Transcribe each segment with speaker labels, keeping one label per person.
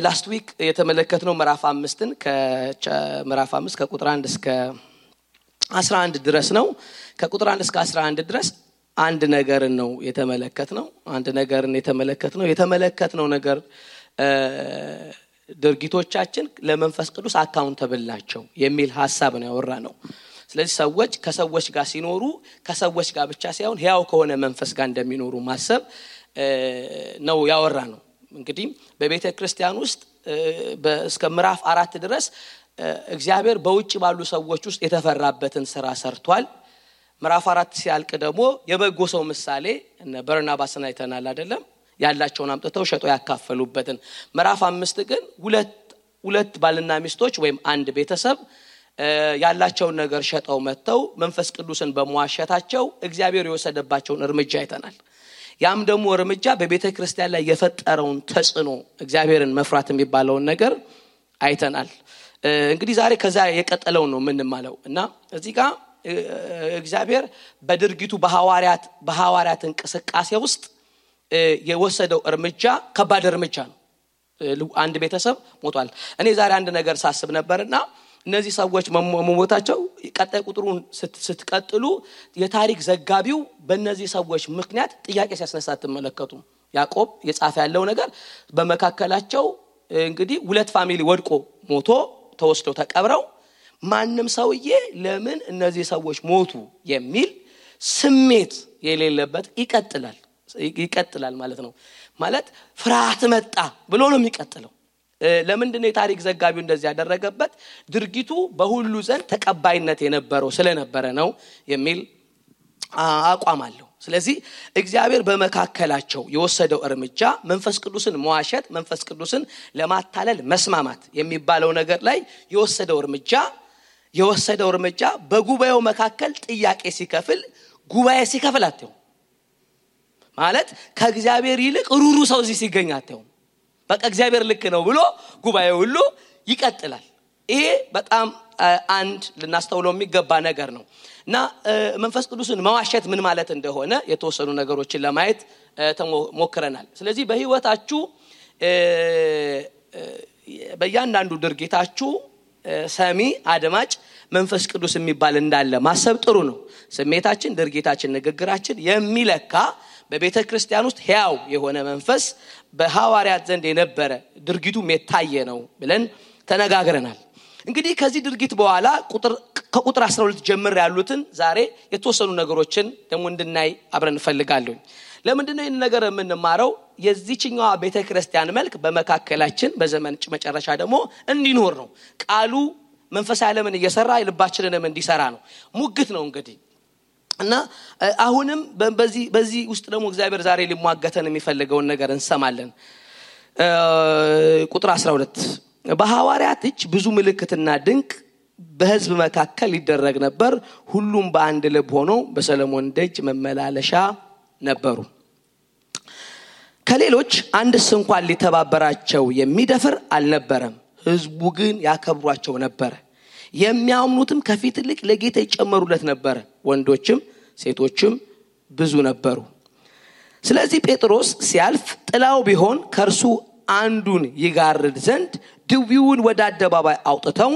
Speaker 1: ላስት ዊክ የተመለከትነው ምዕራፍ 5ን ከምዕራፍ 5 ከቁጥር 1 እስከ 11 ድረስ ነው። ከቁጥር 1 እስከ 11 ድረስ አንድ ነገር ነው የተመለከትነው። የተመለከትነው ነገር ድርጊቶቻችን ለመንፈስ ቅዱስ አካውንተብል ናቸው የሚል ሐሳብ ነው ያወራነው። ስለዚህ ሰዎች ከሰዎች ጋር ሲኖሩ ከሰዎች ጋር ብቻ ሳይሆን ሕያው ከሆነ መንፈስ ጋር እንደሚኖሩ ማሰብ ነው ያወራነው። እንግዲህ በቤተ ክርስቲያን ውስጥ እስከ ምዕራፍ 4 ድረስ እግዚአብሔር በውጭ ባሉ ሰዎች ውስጥ የተፈራበትን ሥራ ሰርቷል። ምዕራፍ 4 ሲያልቅ ደግሞ የበጎ ሰው ምሳሌ እነ በርናባስና አይተናል አይደለም? ያላቸውን አምጥተው ሸጠው ያካፈሉበትን። ምዕራፍ 5 ግን ሁለት ባልና ሚስቶች ወይም አንድ ቤተሰብ ያላቸውን ነገር ሸጠው መተው መንፈስ ቅዱስን በመዋሸታቸው እግዚአብሔር የወሰደባቸውን እርምጃ አይተናል። ያም ደግሞ እርምጃ በቤተ ክርስቲያን ላይ የፈጠረውን ተጽዕኖ እግዚአብሔርን መፍራት የሚባለውን ነገር አይተናል። እንግዲህ ዛሬ ከዛ የቀጠለው ነው ምንማለው እና እዚህ ጋር እግዚአብሔር በድርጊቱ በሐዋርያት እንቅስቃሴ ውስጥ የወሰደው እርምጃ ከባድ እርምጃ ነው። አንድ ቤተሰብ ሞቷል። እኔ ዛሬ አንድ ነገር ሳስብ ነበርና እነዚህ ሰዎች መሞታቸው ቀጣይ ቁጥሩን ስትቀጥሉ የታሪክ ዘጋቢው በእነዚህ ሰዎች ምክንያት ጥያቄ ሲያስነሳ ተመለከቱ። ያዕቆብ የጻፈ ያለው ነገር በመካከላቸው እንግዲህ ሁለት ፋሚሊ ወድቆ ሞቶ ተወስደው ተቀብረው ማንንም ሰውዬ ለምን እነዚህ ሰዎች ሞቱ የሚል ስሜት የሌለበት ይቀጥላል ማለት ነው። ማለት ፍርሃት መጣ ብሎ ነው የሚቀጥለው። ለምንድነው የታሪክ ዘጋቢው እንደዚህ ያደረገበት? ድርጊቱ በሁሉ ዘንድ ተቀባይነት የነበረው ስለነበረ ነው የሚል አቋም አለው። ስለዚህ እግዚአብሔር በመካከላቸው የወሰደው እርምጃ መንፈስ ቅዱስን መዋሸት፣ መንፈስ ቅዱስን ለማታለል መስማማት የሚባለው ነገር ላይ የወሰደው እርምጃ በጉባኤው መካከል ጥያቄ ሲከፍል አትየው ማለት ከእግዚአብሔር ይልቅ ሩሩ ሰው እዚህ ሲገኝ አትየው። በቃ እግዚአብሔር ልክ ነው ብሎ ጉባኤው ሁሉ ይቀጥላል። ይሄ በጣም አንድ ልናስተውለው የሚገባ ነገር ነው እና መንፈስ ቅዱስን መዋሸት ምን ማለት እንደሆነ የተወሰኑ ነገሮችን ለማየት ተሞክረናል። ስለዚህ በህይወታችሁ በእያንዳንዱ ድርጊታችሁ ሰሚ አድማጭ መንፈስ ቅዱስ የሚባል እንዳለ ማሰብ ጥሩ ነው። ስሜታችን፣ ድርጊታችን፣ ንግግራችን የሚለካ በቤተ ክርስቲያን ውስጥ ሕያው የሆነ መንፈስ በሐዋርያት ዘንድ የነበረ ድርጊቱም የታየ ነው ብለን ተነጋግረናል። እንግዲህ ከዚህ ድርጊት በኋላ ከቁጥር 12 ጀምር ያሉትን ዛሬ የተወሰኑ ነገሮችን ደግሞ እንድናይ አብረን እንፈልጋለን። ለምንድነው ይህን ነገር የምንማረው? የዚህኛው ቤተ ክርስቲያን መልክ በመካከላችን በዘመን መጨረሻ ደግሞ እንዲኖር ነው። ቃሉ መንፈሳዊ ዓለምን እየሰራ ልባችንንም እንዲሰራ ነው። ሙግት ነው እንግዲህ እና አሁንም በዚህ ውስጥ ደግሞ እግዚአብሔር ዛሬ ሊሟገተን የሚፈልገውን ነገር እንሰማለን። ቁጥር 12 በሐዋርያት እጅ ብዙ ምልክትና ድንቅ በሕዝብ መካከል ይደረግ ነበር። ሁሉም በአንድ ልብ ሆነው በሰሎሞን ደጅ መመላለሻ ነበሩ። ከሌሎች አንድስ እንኳን ሊተባበራቸው የሚደፍር አልነበረም። ሕዝቡ ግን ያከብሯቸው ነበር። የሚያምኑትም ከፊት ይልቅ ለጌታ ይጨመሩለት ነበር። ወንዶችም ሴቶችም ብዙ ነበሩ። ስለዚህ ጴጥሮስ ሲያልፍ ጥላው ቢሆን ከርሱ አንዱን ይጋርድ ዘንድ ድውዩን ወደ አደባባይ አውጥተው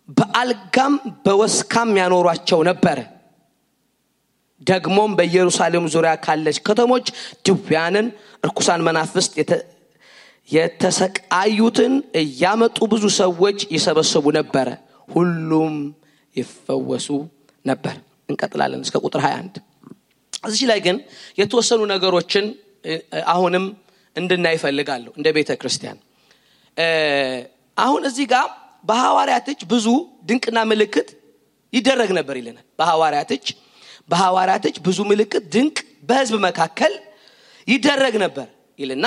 Speaker 1: በአልጋም በወስካም ያኖሯቸው ነበር። ደግሞም በኢየሩሳሌም ዙሪያ ካለች ከተሞች ድውያንን፣ ርኩሳን መናፍስት የተሰቃዩትን እያመጡ ብዙ ሰዎች ይሰበሰቡ ነበር። ሁሉም ይፈወሱ ነበር። እንቀጥላለን እስከ ቁጥር 21። እዚህ ላይ ግን የተወሰኑ ነገሮችን አሁንም እንድናይ ፈልጋለሁ እንደ ቤተ ክርስቲያን። አሁን እዚህ ጋር በሐዋርያት እጅ ብዙ ድንቅና ምልክት ይደረግ ነበር ይለናል። በሐዋርያት እጅ ብዙ ምልክት ድንቅ በሕዝብ መካከል ይደረግ ነበር ይልና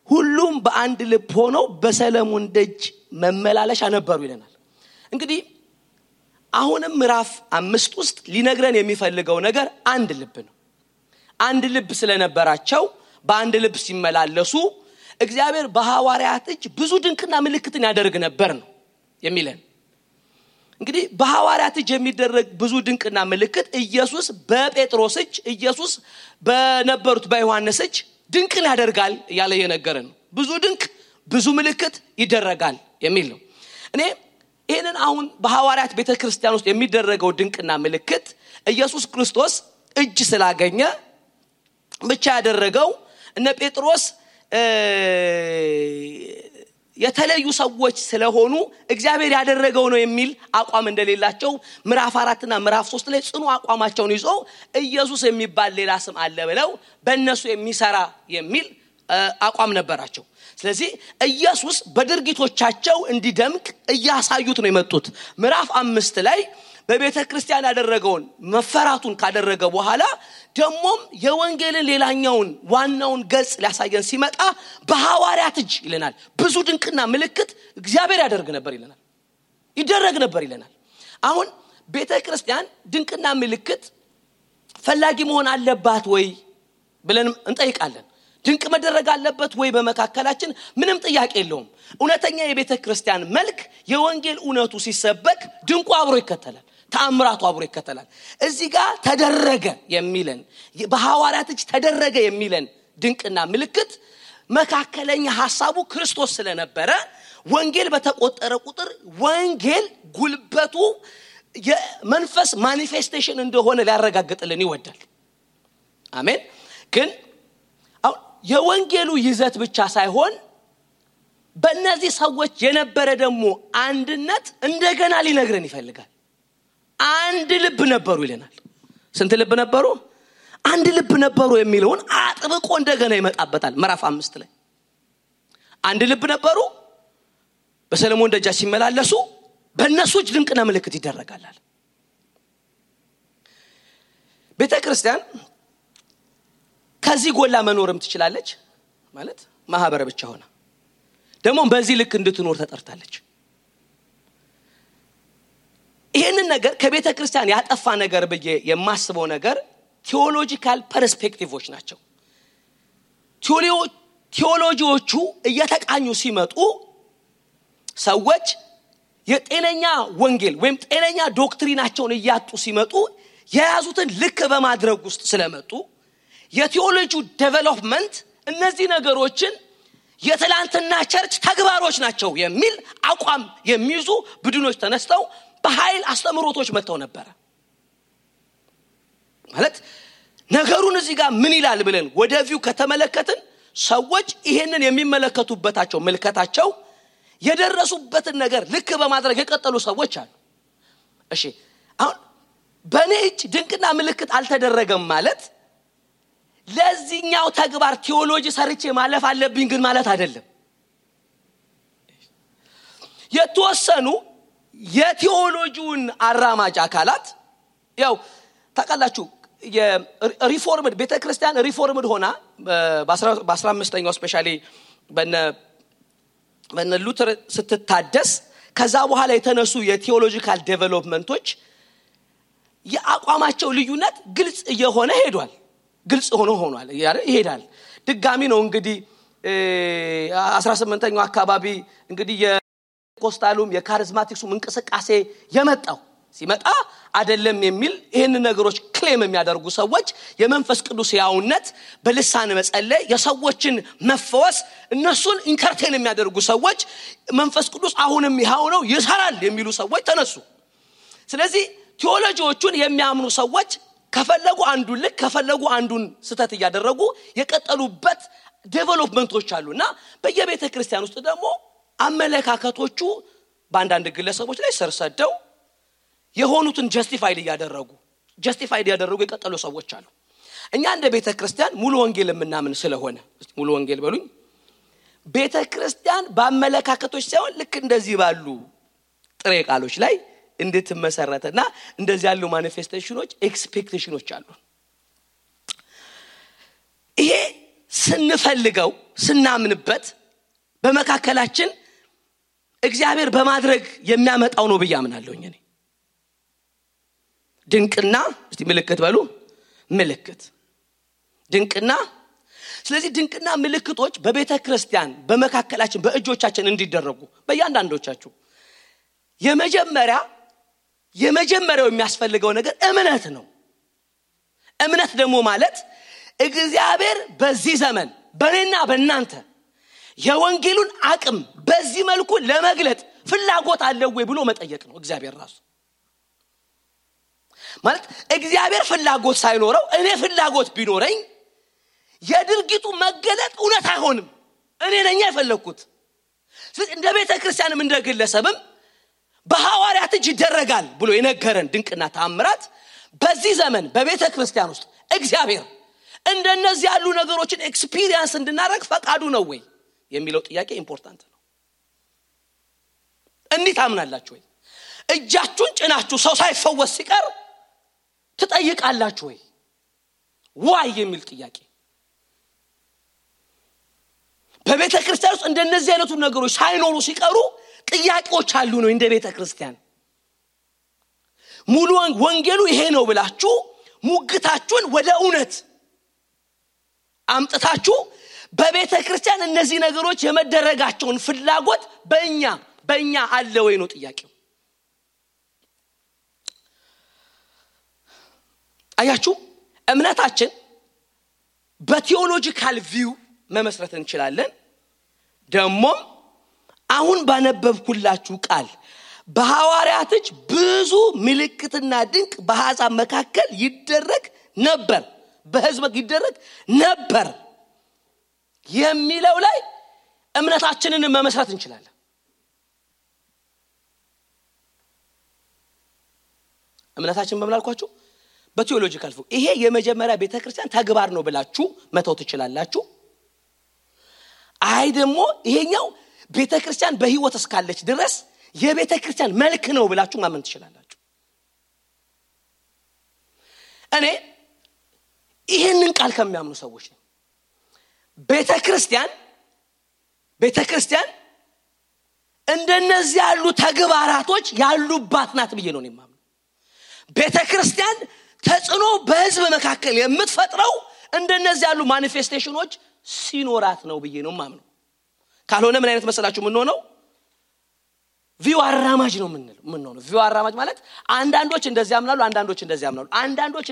Speaker 1: ሁሉም በአንድ ልብ ሆነው በሰሎሞን ደጅ መመላለሻ ነበሩ ይለናል። እንግዲህ አሁንም ምዕራፍ 5 ውስጥ ሊነግረን የሚፈልገው ነገር አንድ ልብ ነው። አንድ ልብ ስለነበራቸው በአንድ ልብ ሲመላለሱ እግዚአብሔር በሐዋርያት እጅ ብዙ ድንቅና ምልክትን ያደርግ ነበር ነው የሚለን። እንግዲህ በሐዋርያት እጅ የሚደረግ ብዙ ድንቅና ምልክት ኢየሱስ በጴጥሮስ እጅ፣ ኢየሱስ በነበሩት በዮሐንስ እጅ ድንቅን ያደርጋል እያለ የነገረን ነው። ብዙ ድንቅ ብዙ ምልክት ይደረጋል የሚል ነው። እኔ ይሄንን አሁን በሐዋርያት ቤተክርስቲያን ውስጥ የሚደረገው ድንቅና ምልክት ኢየሱስ ክርስቶስ እጅ ስላገኘ ብቻ ያደረገው እነ ጴጥሮስ የተለዩ ሰዎች ስለሆኑ እግዚአብሔር ያደረገው ነው የሚል አቋም እንደሌላቸው ምዕራፍ 4 እና ምዕራፍ 3 ላይ ጽኑ አቋማቸውን ይዘው ኢየሱስ የሚባል ሌላ ስም አለ ብለው በእነሱ የሚሰራ የሚል አቋም ነበራቸው። ስለዚህ ኢየሱስ በድርጊቶቻቸው እንዲደምቅ እያሳዩት ነው የመጡት። ምዕራፍ 5 ላይ በቤተክርስቲያን ያደረገውን መፈራቱን ካደረገ በኋላ ደሞም የወንጌልን ሌላኛውን ዋናውን ገጽ ሊያሳየን ሲመጣ በሐዋርያት እጅ ይለናል ብዙ ድንቅና ምልክት እግዚአብሔር ያደርግ ነበር ይለናል፣ ይደረግ ነበር ይለናል። አሁን ቤተክርስቲያን ድንቅና ምልክት ፈላጊ መሆን አለባት ወይ ብለን እንጠይቃለን። ድንቅ መደረግ አለበት ወይ በመካከላችን? ምንም ጥያቄ የለውም። እውነተኛ የቤተክርስቲያን መልክ የወንጌል እውነቱ ሲሰበክ ድንቁ አብሮ ይከተላል፣ ተአምራቱ አብሮ ይከተላል። እዚህ ጋር ተደረገ የሚለን በሐዋርያት እጅ ተደረገ የሚለን ድንቅና ምልክት መካከለኛ ሐሳቡ ክርስቶስ ስለነበረ ወንጌል በተቆጠረ ቁጥር ወንጌል ጉልበቱ የመንፈስ ማኒፌስቴሽን እንደሆነ ሊያረጋግጥልን ይወዳል። አሜን። ግን የወንጌሉ ይዘት ብቻ ሳይሆን በእነዚህ ሰዎች የነበረ ደግሞ አንድነት እንደገና ሊነግረን ይፈልጋል። አንድ ልብ ነበሩ ይለናል። ስንት ልብ ነበሩ? አንድ ልብ ነበሩ የሚለውን አጥብቆ እንደገና ይመጣበታል ምዕራፍ 5 ላይ። አንድ ልብ ነበሩ፣ በሰለሞን ደጃች ሲመላለሱ በእነሱ እጅ ድንቅና ምልክት ይደረጋል። ቤተክርስቲያን ከዚህ ጎላ መኖርም ትችላለች ማለት ማህበረ ብቻ ሆና ደግሞ በዚህ ልክ እንድትኖር ተጠርታለች። ይሄንን ነገር ከቤተክርስቲያን ያጠፋ ነገር ብዬ የማስበው ነገር ቴዎሎጂካል ፐርስፔክቲቮች ናቸው። ቴዎሎጂዎቹ እየተቃኙ ሲመጡ ሰዎች የጤነኛ ወንጌል ወይም ጤነኛ ዶክትሪናቸውን እያጡ ሲመጡ የያዙትን ልክ በማድረግ ውስጥ ስለመጡ የቴዎሎጂው ዴቨሎፕመንት እነዚህ ነገሮችን የትላንትና ቸርች ተግባሮች ናቸው የሚል አቋም የሚይዙ ቡድኖች ተነስተው በኃይል አስተምሮቶች መጥተው ነበር። ማለት ነገሩን እዚህ ጋር ምን ይላል ብለን ወደፊው ከተመለከትን ሰዎች ይሄንን የሚመለከቱበታቸው መልከታቸው የደረሱበትን ነገር ልክ በማድረግ የቀጠሉ ሰዎች አሉ። እሺ አሁን በኔ እጅ ድንቅና ምልክት አልተደረገም ማለት ለዚህኛው ተግባር ቴዎሎጂ ሰርቼ ማለፍ አለብኝ ግን ማለት አይደለም። የተወሰኑ የቴዎሎጂውን አራማጅ አካላት ያው ታውቃላችሁ የሪፎርምድ ቤተክርስቲያን ሪፎርምድ ሆና በ15ኛው ስፔሻሊ በነ ሉተር ስትታደስ ከዛ በኋላ የተነሱ የቴዎሎጂካል ዴቨሎፕመንቶች የአቋማቸው ልዩነት ግልጽ እየሆነ ሄዷል። ግልጽ ሆኗል ይሄዳል። ድጋሚ ነው እንግዲህ 18ኛው አካባቢ እንግዲህ የኮስታሉም የካሪዝማቲክሱም እንቅስቃሴ የመጣው ሲመጣ አይደለም የሚል ይሄን ነገሮች ክሌም የሚያደርጉ ሰዎች የመንፈስ ቅዱስ ያውነት በልሳን መጸለይ የሰዎችን መፈወስ እነሱን ኢንተርቴን የሚያደርጉ ሰዎች መንፈስ ቅዱስ አሁንም ይሃው ነው ይሰራል የሚሉ ሰዎች ተነሱ። ስለዚህ ቴዎሎጂዎቹን የሚያምኑ ሰዎች ከፈለጉ አንዱን ልክ ከፈለጉ አንዱን ስተት ያደረጉ የቀጠሉበት ዴቨሎፕመንቶች አሉና በየቤተ ክርስቲያን ውስጥ ደግሞ አመለካከቶቹ በአንዳንድ ግለሰቦች ላይ ሰርሰደው የሆኑትን ጀስቲፋይድ ያደረጉ የቀጠሉ ሰዎች አሉ። እኛ እንደ ቤተ ክርስቲያን ሙሉ ወንጌል የምናምን ስለሆነ ሙሉ ወንጌል በሉኝ ቤተ ክርስቲያን በአመለካከቶች ሳይሆን ልክ እንደዚህ ባሉ ጥሬ ቃሎች ላይ እንድትመሰረተና እንደዚህ ያሉ ማኒፌስቴሽኖች ኤክስፔክቴሽኖች አሉ። ይሄ ስንፈልገው ስናምንበት በመካከላችን እግዚአብሔር በማድረግ የሚያመጣው ነው በያምናለሁ እኔ። ድንቅና እስቲ ምልክት በሉ ምልክት ድንቅና ስለዚህ ድንቅና ምልክቶች በቤተ ክርስቲያን በመካከላችን በእጆቻችን እንዲደረጉ በእያንዳንዶቻችሁ የመጀመሪያው የሚያስፈልገው ነገር እምነት ነው። እምነት ደግሞ ማለት እግዚአብሔር በዚህ ዘመን በእኔና በእናንተ የወንጌሉን አቅም በዚህ መልኩ ለመግለጥ ፍላጎት አለው ወይ ብሎ መጠየቅ ነው እግዚአብሔር ራሱ። ማለት እግዚአብሔር ፍላጎት ሳይኖረው እኔ ፍላጎት ቢኖረኝ የድርጊቱ መገለጥ እውነት አይሆንም። እኔ ነኝ የፈለኩት። ስለዚህ እንደ ቤተ ክርስቲያንም እንደ ግለሰብም በሐዋርያት እጅ ይደረጋል ብሎ የነገረን ድንቅና ተአምራት በዚህ ዘመን በቤተ ክርስቲያን ውስጥ እግዚአብሔር እንደነዚህ ያሉ ነገሮችን ኤክስፒሪየንስ እንድናደርግ ፈቃዱ ነው ወይ የሚለው ጥያቄ ኢምፖርታንት ነው። እንዴት አምናላችሁ ወይ? እጃችሁን ጭናችሁ ሰው ሳይፈወስ ሲቀር ትጠይቃላችሁ ወይ? ዋይ የሚል ጥያቄ በቤተ ክርስቲያን ውስጥ እንደነዚህ አይነቱ ነገሮች ሳይኖሩ ሲቀሩ ጥያቄዎች አሉ ነው እንደ ቤተ ክርስቲያን። ሙሉ ወንጌሉ ይሄ ነው ብላችሁ ሙግታችሁን ወደ እውነት አምጥታችሁ በቤተ ክርስቲያን እነዚህ ነገሮች የመደረጋቸውን ፍላጎት በእኛ አለ ወይ ነው ጥያቄው። አያችሁ እምነታችን በቲዮሎጂካል ቪው መመስረት እንችላለን። ደግሞ አሁን ባነበብኩላችሁ ቃል በሐዋርያት እጅ ብዙ ምልክትና ድንቅ በአሕዛብ መካከል ይደረግ ነበር፣ በሕዝብ ይደረግ ነበር የሚለው ላይ እምነታችንን መመስረት እንችላለን። እምነታችን በመላልኳችሁ በቲዮሎጂካል ቪው ይሄ የመጀመሪያ ቤተክርስቲያን ተግባር ነው ብላችሁ መተው ትችላላችሁ። አይ ደግሞ ይሄኛው ቤተክርስቲያን በህይወት እስካለች ድረስ የቤተክርስቲያን መልክ ነው ብላችሁ ማመን ትችላላችሁ። እኔ ይሄንን ቃል ከሚያምኑ ሰዎች ነኝ። ቤተክርስቲያን እንደነዚህ ያሉ ተግባራቶች ያሉባት ናት ብዬ ነው የማምነው። ቤተክርስቲያን ተጽዕኖ በህዝብ መካከል የምትፈጥረው እንደነዚህ ያሉ ማኒፌስቴሽኖች ሲኖራት ነው ብዬ ነው የማምነው። ካልሆነ ምን አይነት መሰላችሁ ምን ሆነው ቪው አራማጅ ነው ምን ቪው አራማጅ ማለት አንዳንዶች እንደዚህ ያምናሉ፣ አንዳንዶች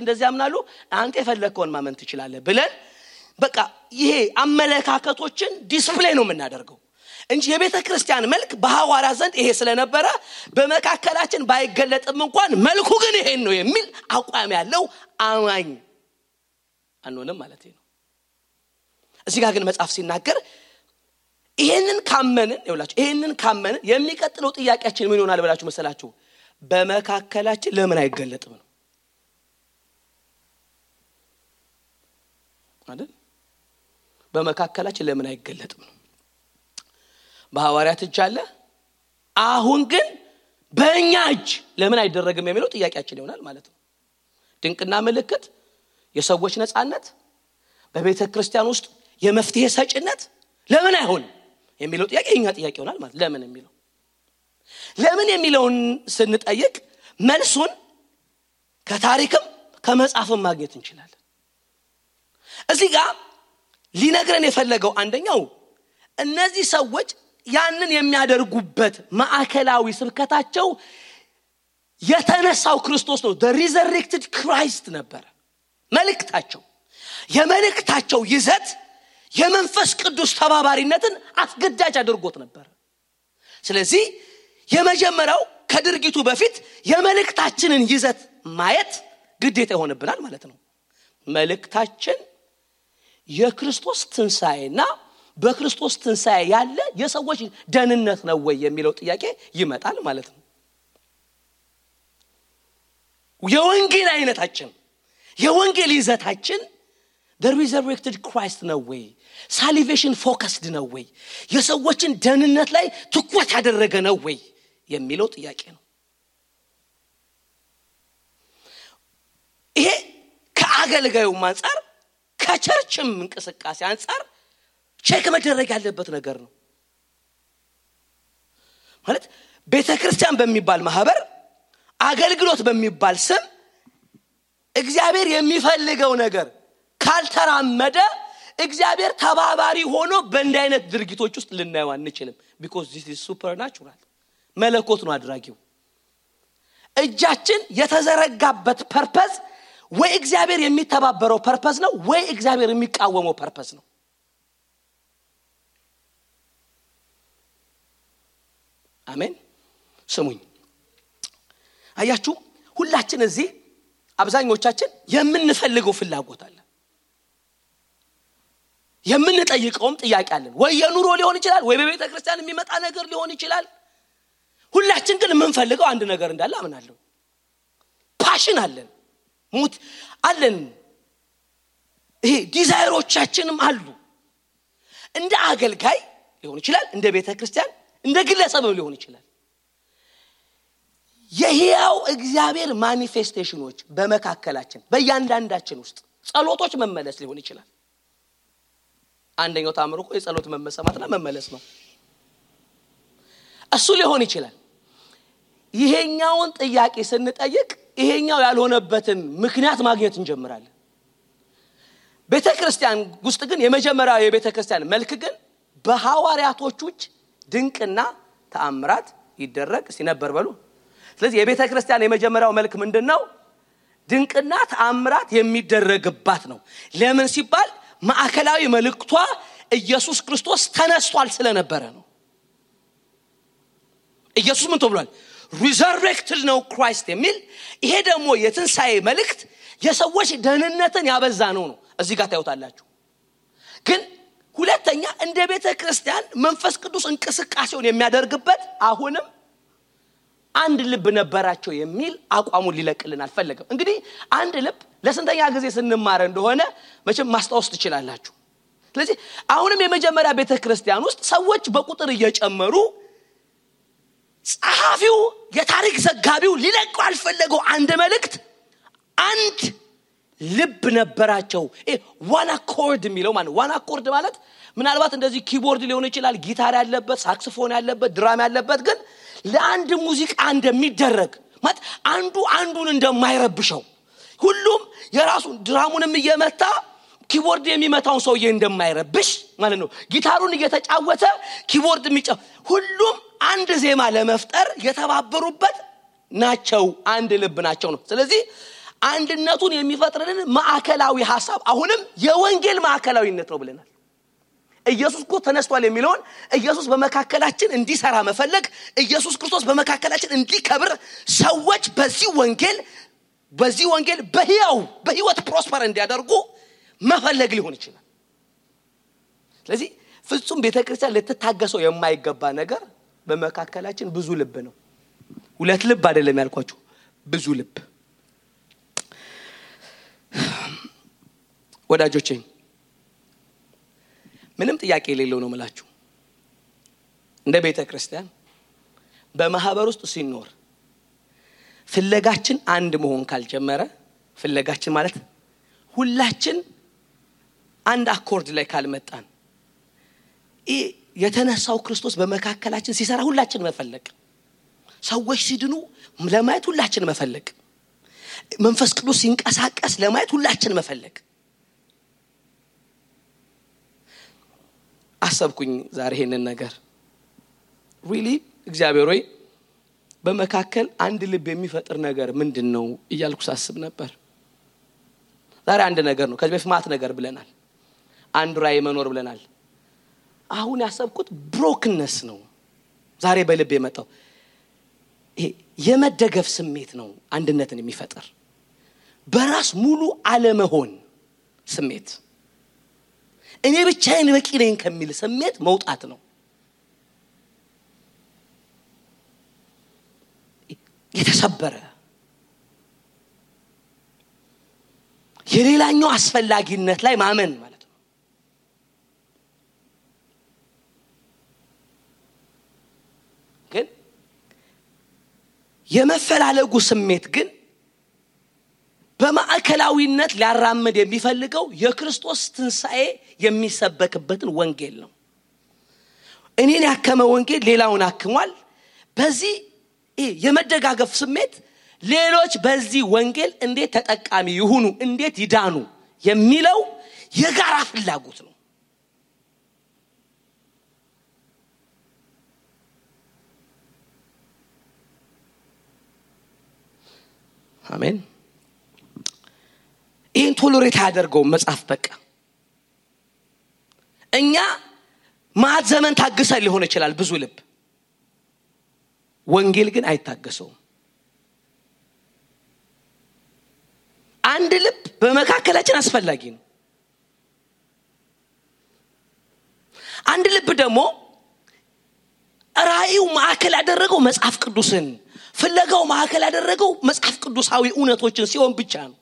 Speaker 1: እንደዚህ ያምናሉ፣ አንተ የፈለከውን ማመን ትችላለህ ብለን በቃ ይሄ አመለካከቶችን ዲስፕሌይ ነው የምናደርገው እንጂ የቤተ ክርስቲያን መልክ በሐዋርያት ዘንድ ይሄ ስለነበረ በመካከላችን ባይገለጥም እንኳን መልኩ ግን ይሄን ነው የሚል አቋም ያለው አማኝ አንሆንም ማለት ነው። እዚህ ጋር ግን መጽሐፍ ሲናገር ይሄንን ካመንን የሚቀጥለው ጥያቄያችን ምን ይሆናል ብላችሁ መሰላችሁ? በመካከላችን ለምን አይገለጥም ነው አይደል? በመካከላችን ለምን አይገለጥም ነው። በሐዋርያት እጅ አለ፣ አሁን ግን በእኛ እጅ ለምን አይደረግም የሚለው ጥያቄያችን ይሆናል ማለት ነው። ድንቅና ምልክት፣ የሰዎች ነጻነት፣ በቤተ ክርስቲያን ውስጥ የመፍትሄ ሰጭነት ለምን አይሆንም የሚለው ጥያቄ የኛ ጥያቄ ይሆናል ማለት ለምን የሚለውን ስንጠይቅ መልሱን ከታሪክም ከመጽሐፍም ማግኘት እንችላለን። እዚህ ጋር ሊነግረን የፈለገው አንደኛው እነዚህ ሰዎች ያንን የሚያደርጉበት ማዕከላዊ ስብከታቸው የተነሳው ክርስቶስ ነው። the resurrected Christ ነበር መልእክታቸው። የመልእክታቸው ይዘት የመንፈስ ቅዱስ ተባባሪነትን አስገዳጅ አድርጎት ነበር። ስለዚህ የመጀመሪያው ከድርጊቱ በፊት የመልእክታችንን ይዘት ማየት ግዴታ ይሆንብናል ማለት ነው። መልእክታችን የክርስቶስ ትንሣኤና በክርስቶስ ትንሣኤ ያለ የሰዎች ደህንነት ነው ወይ የሚለው ጥያቄ ይመጣል ማለት ነው። የወንጌል አይነታችን የወንጌል ይዘታችን the resurrected Christ ነው ወይ? salvation focused ነው ወይ? የሰዎችን ደህንነት ላይ ትኩረት ያደረገ ነው ወይ የሚለው ጥያቄ ነው። ይሄ ከአገልጋዩ አንፃር ከቸርችም እንቅስቃሴ አንፃር ቼክ መደረግ ያለበት ነገር ነው። ማለት ቤተክርስቲያን በሚባል ማህበር አገልግሎት በሚባል ስም እግዚአብሔር የሚፈልገው ነገር ካልተራመደ እግዚአብሔር ተባባሪ ሆኖ በእንዲህ አይነት ድርጊቶች ውስጥ ልናየው አንችልም። because this is supernatural መለኮት ነው አድራጊው። እጃችን የተዘረጋበት ፐርፐዝ ወይ እግዚአብሔር የሚተባበረው ፐርፐዝ ነው ወይ እግዚአብሔር የሚቃወመው ፐርፐዝ ነው። አሜን። ስሙኝ አያችሁ ሁላችን እዚህ አብዛኞቻችን የምንፈልገው ፍላጎት አለ የምንጠይቀውም ጥያቄ አለን ወይ የኑሮ ሊሆን ይችላል ወይ በቤተ ክርስቲያን የሚመጣ ነገር ሊሆን ይችላል ሁላችን ግን የምንፈልገው አንድ ነገር እንዳለ አምናለሁ ፓሽን አለን ሙት አለን ይሄ ዲዛይሮቻችንም አሉ እንደ አገልጋይ ሊሆን ይችላል እንደ ቤተ ክርስቲያን እንደ ግለሰብም ሊሆን ይችላል የሕያው እግዚአብሔር ማኒፌስቴሽኖች በመካከላችን በእያንዳንዳችን ውስጥ ጸሎቶች መመለስ ሊሆን ይችላል አንደኛው ታምሩ እኮ የጸሎት መመሰማትና መመለስ ነው እሱ ሊሆን ይችላል ይሄኛውን ጥያቄ ስንጠይቅ ይሄኛው ያልሆነበትን ምክንያት ማግኘት እንጀምራለን ቤተክርስቲያን ውስጥ ግን የመጀመሪያው የቤተክርስቲያን መልክ ግን በሐዋርያቶች ድንቅና ተአምራት ይደረግ ሲነበር በሉ ስለዚህ የቤተክርስቲያን የመጀመሪያው መልክ ምንድነው ድንቅና ተአምራት የሚደረግባት ነው ለምን ሲባል ማዕከላዊ መልእክቷ ኢየሱስ ክርስቶስ ተነስቷል ስለነበረ ነው ኢየሱስ ምን ተብሏል resurrected ነው ክራይስት የሚል ይሄ ደግሞ የትንሳኤ መልእክት የሰዎች ደህንነትን ያበዛ ነው እዚህ ጋር ታዩታላችሁ ግን ሁለተኛ እንደ ቤተክርስቲያን መንፈስ ቅዱስ እንቅስቃሴውን የሚያደርግበት አሁንም አንድ ልብ ነበራቸው የሚል አቋሙን ሊለቅልን አልፈለገም እንግዲህ አንድ ልብ ለስንተኛ ጊዜ ስንማር እንደሆነ መቼም ማስታወስ ትችላላችሁ ስለዚህ አሁንም የመጀመሪያ ቤተክርስቲያን ውስጥ ሰዎች በቁጥር እየጨመሩ ጸሐፊው የታሪክ ዘጋቢው ሊለቀው አልፈለገው አንድ መልእክት አንድ ልብ ነበራቸው ዋን አኮርድ የሚለው ማለት ዋን አኮርድ ማለት ምናልባት እንደዚህ ኪቦርድ ሊሆን ይችላል ጊታር ያለበት ሳክስፎን ያለበት ድራም ያለበት ግን ለአንድ ሙዚቃ እንደሚደረግ ማለት አንዱ አንዱን እንደማይረብሸው ሁሉም የራሱ ድራሙንም እየመታ ኪቦርድ የሚመታውን ሰውዬ እንደማይረብሽ ማለት ነው ጊታሩን እየተጫወተ ኪቦርድ የሚጫወት ሁሉም አንድ ዜማ ለመፍጠር የተባበሩበት ናቸው አንድ ልብ ናቸው ነው ስለዚህ አንድነቱን የሚፈጥርልን ማዕከላዊ ሐሳብ አሁንም የወንጌል ማዕከላዊነት ነው ብለናል ኢየሱስ እኮ ተነስቷል የሚለውን ኢየሱስ በመካከላችን እንዲሰራ መፈለግ ኢየሱስ ክርስቶስ በመካከላችን እንዲከብር ሰዎች በዚህ ወንጌል በህይወት ፕሮስፐር እንዲያደርጉ መፈለግ ሊሆን ይችላል ስለዚህ ፍጹም ቤተክርስቲያን ልትታገሰው የማይገባ ነገር በመካከላችን ብዙ ልብ ነው ሁለት ልብ አይደለም ያልኳችሁ ብዙ ልብ ወዳጆቼ ምንም ጥያቄ የሌለው ነው ማለት እንደ ቤተክርስቲያን በማህበር ውስጥ ሲኖር ፍለጋችን አንድ መሆን ካልጀመረ ፍለጋችን ማለት ሁላችን አንድ አኮርድ ላይ ካልመጣን የተነሳው ክርስቶስ በመካከላችን ሲሰራ ሁላችን መፈለግ ሰዎች ሲድኑ ለማየት ሁላችን መፈለግ መንፈስ ቅዱስ ሲንቀሳቀስ ለማየት ሁላችን መፈለግ አሰብኩኝ ዛሬ ይሄንን ነገር really እግዚአብሔር ሆይ በመካከል አንድ ልብ የሚፈጥር ነገር ምንድነው እያልኩ ሳስብ ነበር ዛሬ አንድ ነገር ነው ከዚህ በፊት ማት ነገር ብለናል አንድ ራይ መኖር ብለናል አሁን ያሰብኩት ብሮክነስ ነው ዛሬ በልብ የመጣው ይሄ የመደገፍ ስሜት ነው አንድነትን የሚፈጥር በራስ ሙሉ አለመሆን ስሜት እኔ ብቻዬን በቂ ነኝ ከሚል ስሜት መውጣት ነው የተሰበረ የሌላኛው አስፈላጊነት ላይ ማመን ማለት ነው ግን የመፈላለጉ ስሜት ግን በማዕከላዊነት ሊያራምድ የሚፈልገው የክርስቶስ ትንሳኤ የሚሰበክበትን ወንጌል ነው እኔን ያከመ ወንጌል ሌላውን አክሟል በዚህ የመደጋገፍ ስሜት ሌሎች በዚህ ወንጌል እንዴት ተጠቃሚ ይሁኑ እንዴት ይዳኑ የሚለው የጋራ ፍላጎት ነው አሜን ይህን ቶሎሬት ያደርገው መጽሐፍ በቃ እኛ ማት ዘመን ታግሰን ሊሆን ይችላል ብዙ ልብ ወንጌል ግን አይታገሰውም። አንድ ልብ በመካከላችን አስፈላጊ ነው። አንድ ልብ ደግሞ ራእዩ ማዕከል ያደረገው መጽሐፍ ቅዱስን ፍለጋው ማዕከል ያደረገው መጽሐፍ ቅዱሳዊ እውነቶችን ሲሆን ብቻ ነው።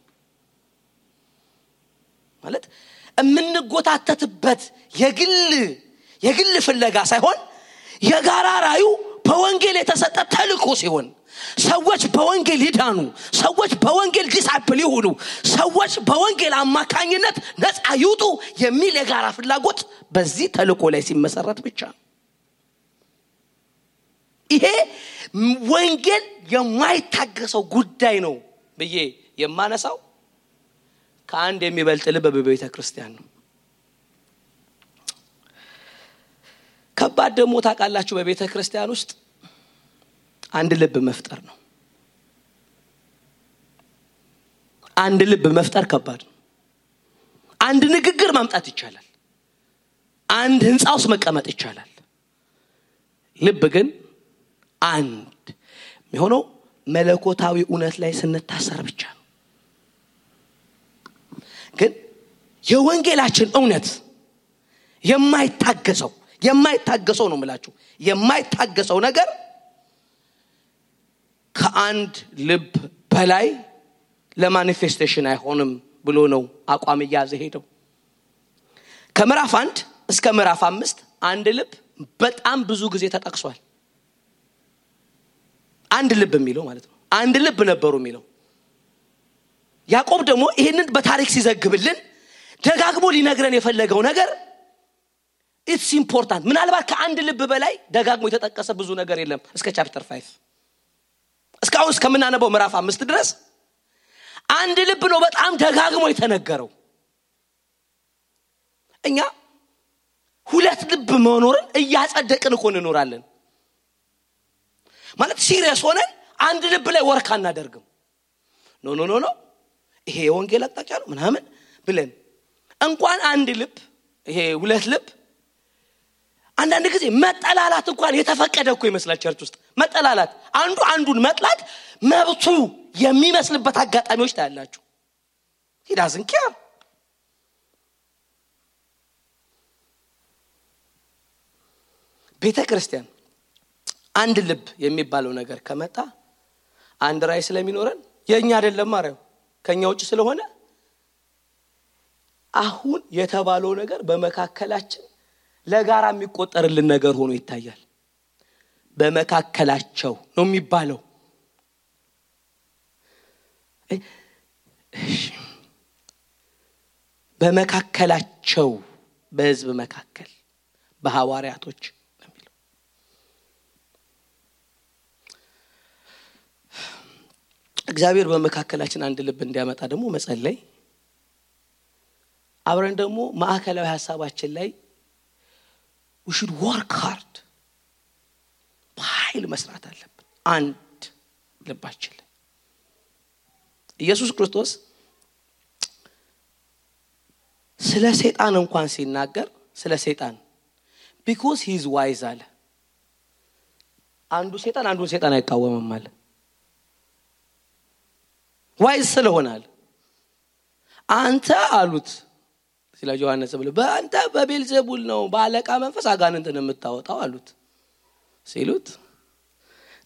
Speaker 1: ማለት እምንጎታተትበት የግል ፍለጋ ሳይሆን የጋራ ራእዩ በወንጌል የተሰጠ ተልእኮ ሲሆን ሰዎች በወንጌል ይዳኑ፣ ሰዎች በወንጌል ዲሳይፕል ይሁኑ፣ ሰዎች በወንጌል አማካኝነት ነፃ ይውጡ የሚል የጋራ ፍላጎት በዚህ ተልእኮ ላይ ሲመሰረት ብቻ ነው። ይሄ ወንጌል የማይታገሰው ጉዳይ ነው ብዬ የማነሳው ከአንድ የሚበልጥ ልብ በቤተ ክርስቲያን ነው። ከባድ ደግሞ ታውቃላችሁ በቤተ ክርስቲያን ውስጥ አንድ ልብ መፍጠር ነው። አንድ ልብ መፍጠር ከባድ ነው። አንድ ንግግር ማምጣት ይቻላል። አንድ ህንጻ ውስጥ መቀመጥ ይቻላል። ልብ ግን አንድ የሚሆነው መለኮታዊ እውነት ላይ ስንታሰር ብቻ ነው። ግን የወንጌላችን እውነት የማይታገሰው ነው ማለት የማይታገሰው ነገር ከአንድ ልብ በላይ ለማኒፌስቴሽን አይሆንም ብሎ ነው አቋም ያዘ ሄደው። ከምዕራፍ 1 እስከ ምዕራፍ 5 አንድ ልብ በጣም ብዙ ጊዜ ተጠቅሷል። አንድ ልብ የሚለው ማለት ነው አንድ ልብ ነበሩ የሚለው። ያዕቆብ ደግሞ ይሄንን በታሪክ ሲዘግብልን ደጋግሞ ሊነግረን የፈለገው ነገር ኢትስ ኢምፖርታንት። ምናልባት ከአንድ ልብ በላይ ደጋግሞ የተጠቀሰ ብዙ ነገር የለም እስከ ቻፕተር 5 እስካሁን እስከምናነበው ምዕራፍ 5 ድረስ አንድ ልብ ነው በጣም ደጋግሞ የተነገረው። እኛ ሁለት ልብ መኖርን እያጸደቅን እኮ እንኖራለን። ማለት ሲሪየስ ሆነን አንድ ልብ ላይ ወርክ አናደርግም። ኖ ይሄ የወንጌል አቅጣጫ ነው ምናምን ብለን እንኳን አንድ ልብ ይሄ ሁለት ልብ አንዳንድ ጊዜ መጠላላት እንኳን የተፈቀደ እኮ ይመስላል። ቸርች ውስጥ መጠላላት አንዱ አንዱን መጥላት መብቱ የሚመስልበት አጋጣሚዎች ታያላችሁ። he doesn't care። ቤተ ክርስቲያን አንድ ልብ የሚባለው ነገር ከመጣ አንድ ራይ ስለሚኖረን የኛ አይደለም ማረው ከኛ ውጭ ስለሆነ አሁን የተባለው ነገር በመካከላችን ለጋራ የሚቆጠርልን ነገር ሆኖ ይታያል። በመካከላቸው ነው የሚባለው። በመካከላቸው በህዝብ መካከል በሐዋርያቶች የሚለው እግዚአብሔር በመካከላችን አንድ ልብ እንዲያመጣ ደግሞ መጸለይ አብረን ደግሞ ማዕከላዊ ሐሳባችን ላይ we should work hard በኃይል መስራት አለብን። አንድ ልባችን ላይ ኢየሱስ ክርስቶስ ስለ ሰይጣን እንኳን ሲናገር ስለ ሰይጣን because he is wise አለ። አንዱን ሰይጣን አይቃወምም አለ። wise ስለሆነል አንተ አሉት ስለ ዮሐንስ ብለ በአንተ በቤልዜቡል ነው ባለቃ መንፈስ አጋንንትን የምታወጣው አሉት። ሲሉት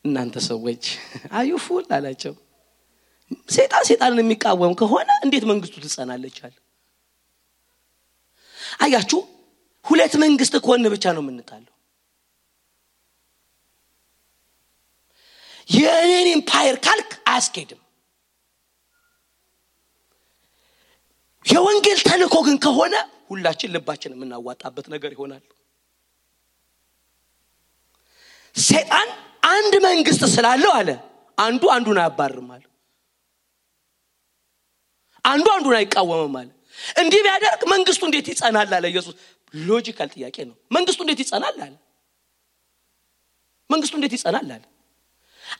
Speaker 1: እናንተ ሰዎች አዩፉል አላቸው። ሰይጣንን የሚቃወም ከሆነ እንዴት መንግስቱ ትጸናለች አለ። አያችሁ ሁለት መንግስት ከሆነ ብቻ ነው የምንጣለው። የኔን ኢምፓየር ካልክ አያስኬድም። የወንጌል ተልእኮ ግን ከሆነ ሁላችን ልባችን የምናዋጣበት ነገር ይሆናል። ሰይጣን አንድ መንግስት ስላለው አለ አንዱን አያባርም አለ። አንዱን አይቃወምም አለ። እንዲህ ቢያደርግ መንግስቱ እንዴት ይጸናል አለ ኢየሱስ። ሎጂካል ጥያቄ ነው። መንግስቱ እንዴት ይጸናል አለ። መንግስቱ እንዴት ይጸናል አለ።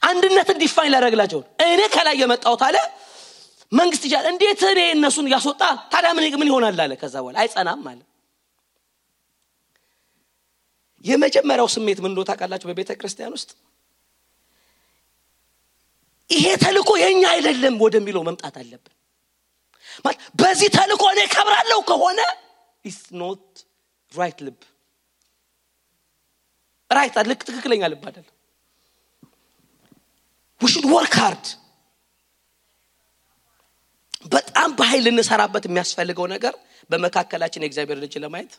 Speaker 1: አንድነትን ዲፋይን ላደርግላቸው እኔ ከላይ የመጣሁት አለ መንግስት ይቻላል እንዴት እኔ እነሱን ያስወጣ ታዲያ ምን ይሆናል አለ። ከዛ በኋላ አይጸናም አለ። የመጀመሪያው ስሜት ምን እንደሆነ ታውቃላችሁ? በቤተ ክርስቲያን ውስጥ ይሄ ተልኮ የኛ አይደለም ወደሚለው መምጣት አለብን። ማለት በዚህ ተልኮ እኔ ከብራለሁ ከሆነ it's not right ልብ right አልክ ትክክለኛ ልብ አይደለም። we should work hard። በጣም በኃይል እንሰራበት የሚያስፈልገው ነገር በመካከላችን የእግዚአብሔር ልጅ ለማየት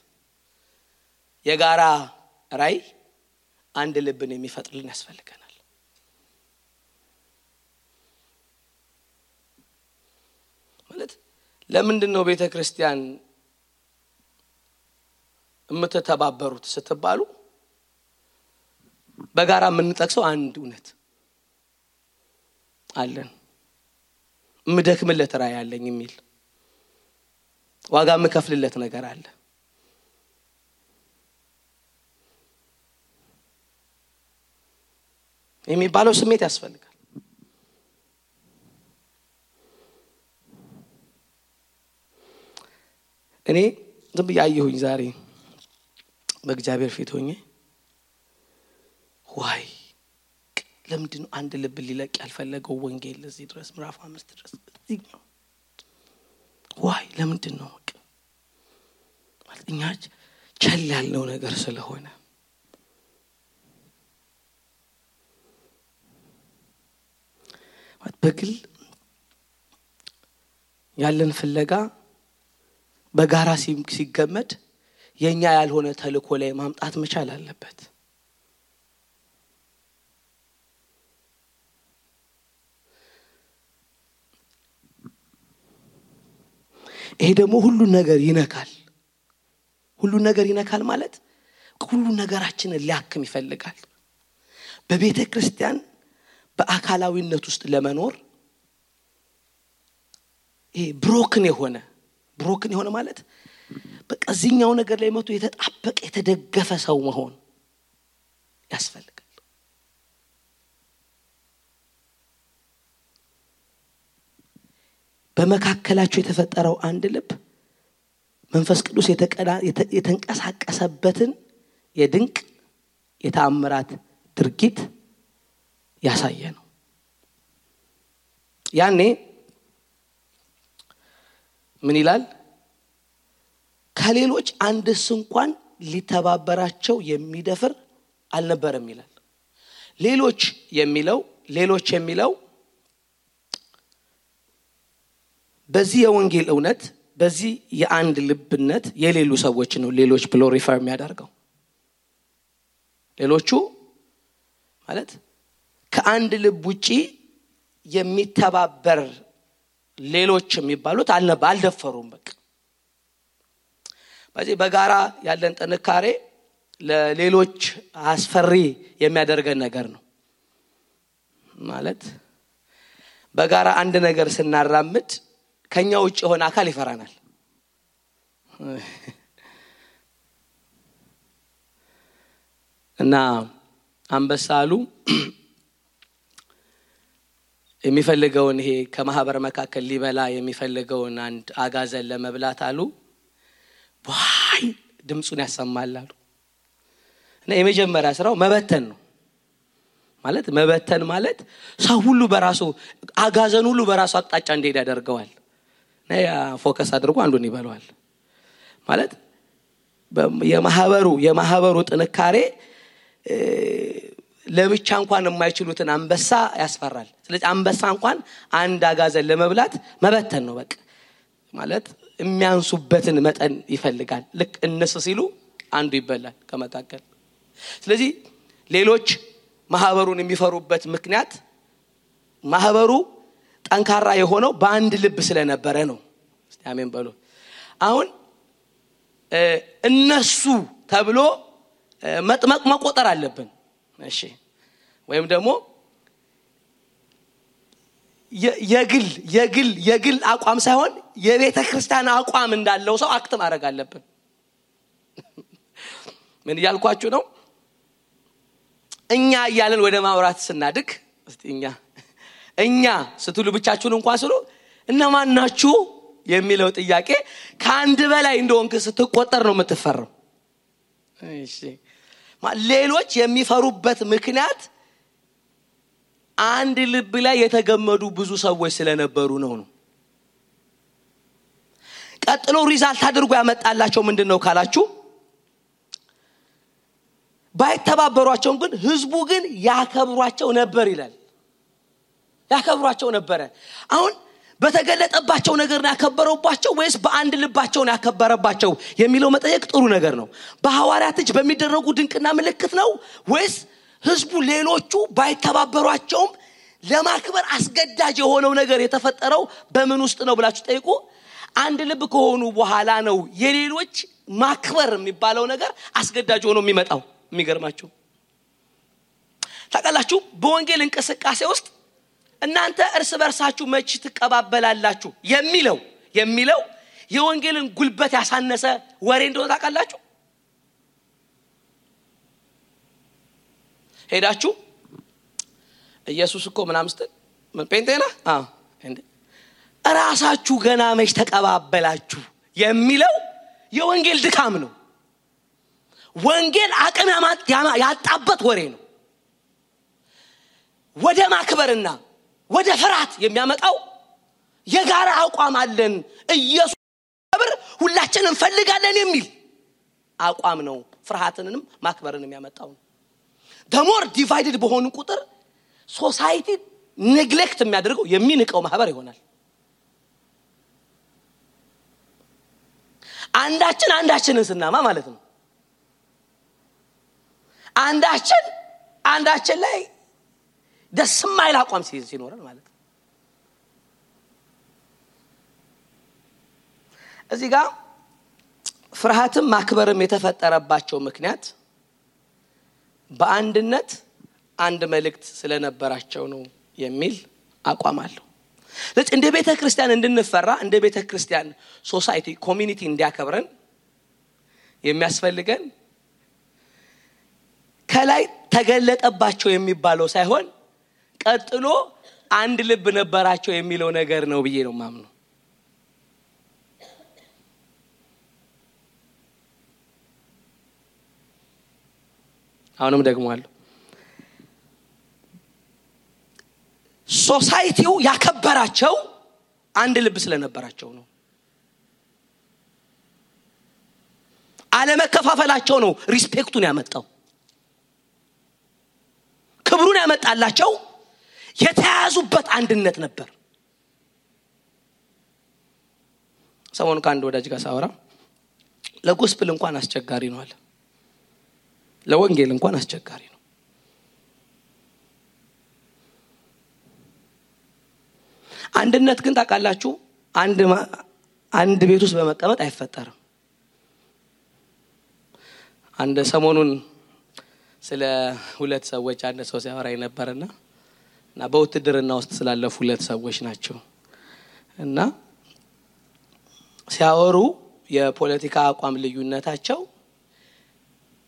Speaker 1: የጋራ ራይ አንድ ልብን የሚፈጥርልን ያስፈልገናል። ማለት ለምንድነው ቤተክርስቲያን የምትተባበሩት ስትባሉ በጋራ የምንጠቅሰው አንድ እውነት አለን። ምደክምለት ራይ አለኝ የሚል ዋጋ መከፍልለት ነገር አለ። የሚባለው ስሜት ያስፈልጋል። እኔ ዝም ብያየሁኝ ዛሬ በእግዚአብሔር ፊት ሆኜ ዋይ ለምንድነው አንድ ልብ ሊለቅ ያልፈለገው ወንጌል ለዚህ ድረስ ምዕራፍ 5 ድረስ እዚህኛው ዋይ ለምንድነው ማለት እኛ ቸል ያለው ነገር ስለሆነ በግል ያለን ፍለጋ በጋራ ሲገመድ የኛ ያልሆነ ተልኮ ላይ ማምጣት መቻል አለበት። ይሄ ደግሞ ሁሉ ነገር ይነካል። ሁሉ ነገር ይነካል ማለት ሁሉ ነገራችንን ሊያክም ይፈልጋል። በቤተ ክርስቲያን በአካላዊነት ውስጥ ለመኖር ይሄ ብሮክን የሆነ ማለት በቃ እዚህኛው ነገር ላይ መቶ የተጣበቀ የተደገፈ ሰው መሆን ያስፈልጋል። በመካከላቸው የተፈጠረው አንድ ልብ መንፈስ ቅዱስ የተንቀሳቀሰበትን የድንቅ የተአምራት ድርጊት ያሳየ ነው። ያኔ ምን ይላል? ከሌሎች አንድስ እንኳን ሊተባበራቸው የሚደፍር አልነበረም ይላል። ሌሎች የሚለው በዚህ የወንጌል እውነት በዚህ የአንድ ልብነት የሌሉ ሰዎች ነው ሌሎች ብሎ ሪፈር የሚያደርገው። ሌሎቹ ማለት ከአንድ ልብ ውጪ የሚተባበር ሌሎች የሚባሉት አልደፈሩም። በቃ በዚህ በጋራ ያለን ጥንካሬ ለሌሎች አስፈሪ የሚያደርገን ነገር ነው። ማለት በጋራ አንድ ነገር ስናራምድ ከኛ ውጭ ሆነ አካል ይፈራናል። እና አንበሳሉ የሚፈልገውን ይሄ ከማህበር መካከል ሊበላ የሚፈልገውን አንድ አጋዘን ለመብላት አሉ ዋይ ድምጹን ያሰማላሉ። እና የመጀመሪያ ስራው መበተን ነው። መበተን ማለት ሰው ሁሉ በራሱ አጋዘን ሁሉ በራሱ አቅጣጫ እንዲሄድ ያደርገዋል። ነያ ፎከስ አድርጎ አንዱን ይበላዋል። ማለት የማህበሩ ጥንካሬ ለብቻ እንኳን የማይችሉትን አንበሳ ያስፈራል። ስለዚህ አንበሳ እንኳን አንድ አጋዘን ለመብላት መበተን ነው በቃ። ማለት የሚያንሱበትን መጠን ይፈልጋል። ልክ እነሱ ሲሉ አንዱ ይበላል ከመካከል። ስለዚህ ሌሎች ማህበሩን የሚፈሩበት ምክንያት ማህበሩ ጠንካራ የሆነው በአንድ ልብ ስለነበረ ነው። እስቲ አሜን በሉ። አሁን እነሱ ተብሎ መቆጠር አለብን። እሺ ወይም ደግሞ የግል አቋም ሳይሆን የቤተ ክርስቲያን አቋም እንዳለው ሰው አክት ማድረግ አለብን። ምን ያልኳችሁ ነው? እኛ እያለን ወደ ማውራት ስናድግ እስቲ እኛ ስትሉ ብቻችሁን እንኳን ስሉ እነማን ናችሁ የሚለው ጥያቄ ከአንድ በላይ እንደሆንክ ስትቆጠር ነው የምትፈራው። እሺ ሌሎች የሚፈሩበት ምክንያት አንድ ልብ ላይ የተገመዱ ብዙ ሰዎች ስለነበሩ ነው። ቀጥሎ ሪዛልት አድርጎ ያመጣላቸው ምንድነው ካላችሁ ባይተባበሯቸው ግን ህዝቡ ግን ያከብሯቸው ነበር ይላል። ያከብሯቸው ነበር። አሁን በተገለጠባቸው ነገር ያከበረባቸው ወይስ በአንድ ልባቸው ያከበረባቸው የሚለው መጠየቅ ጥሩ ነገር ነው። በሐዋርያት እጅ በሚደረጉ ድንቅና ምልክት ነው ወይስ ህዝቡ ሌሎቹ ባይተባበሯቸውም ለማክበር አስገዳጅ የሆነው ነገር የተፈጠረው በምን ውስጥ ነው ብላችሁ ጠይቁ። አንድ ልብ ከሆኑ በኋላ ነው የሌሎች ማክበር የሚባለው ነገር አስገዳጅ ሆኖ የሚመጣው። የሚገርማችሁ ታውቃላችሁ በወንጌል እንቅስቃሴ ውስጥ እናንተ እርስ በርሳችሁ መች ትቀባበላላችሁ የሚለው የወንጌልን ጉልበት ያሳነሰ ወሬ እንደሆነ ታውቃላችሁ። ሄዳችሁ ኢየሱስ እኮ ምናምን ምን ጴንጤና እንዴ ራሳችሁ ገና መች ተቀባበላችሁ የሚለው የወንጌል ድካም ነው። ወንጌል አቅም ያጣበት ወሬ ነው። ወደ ማክበርና ወደ ፍርሃት የሚያመጣው የጋራ አቋም አለን ኢየሱስ ክብር ሁላችንም እንፈልጋለን የሚል አቋም ነው ፍርሃትንም ማክበርንም ያመጣው። ደሞር ዲቫይድድ በሆኑ ቁጥር ሶሳይቲ ኔግሌክት የሚያደርገው የሚንቀው ማህበር ይሆናል። አንዳችንን ስናማ ማለት ነው። አንዳችን ላይ ደስ የማይል አቋም ሲኖረን ማለት ነው። እዚህ ጋር ፍርሃትም ማክበርም የተፈጠረባቸው ምክንያት በአንድነት አንድ መልእክት ስለነበራቸው ነው የሚል አቋም አለው። ስለዚህ እንደ ቤተክርስቲያን እንድንፈራ እንደ ቤተክርስቲያን ሶሳይቲ ኮሚኒቲ እንዲያከብረን የሚያስፈልገን ከላይ ተገለጠባቸው የሚባለው ሳይሆን ቀጥሎ አንድ ልብ ነበራቸው የሚለው ነገር ነው ብዬ ነው ማምነው። አሁንም ደግሞ አለ ሶሳይቲው ያከበራቸው አንድ ልብ ስለነበራቸው ነው። አለመከፋፈላቸው ነው ሪስፔክቱን ያመጣው። ክብሩን ያመጣላቸው የተያዙበት አንድነት ነበር። ሰሞኑን ከአንድ ወዳጅ ጋር ሳወራ ለጎስፕል እንኳን አስቸጋሪ ነው አለ። ለወንጌል እንኳን አስቸጋሪ ነው። አንድነት ግን ታውቃላችሁ አንድ ቤት ውስጥ በመቀመጥ አይፈጠርም። አንድ ሰሞኑን ስለ ሁለት ሰዎች አንድ ሰው ሲያወራኝ ነበርና በውትድርና ውስጥ ስላለፉ ሁለት ሰዎች ናቸው እና ሲያወሩ የፖለቲካ አቋም ልዩነታቸው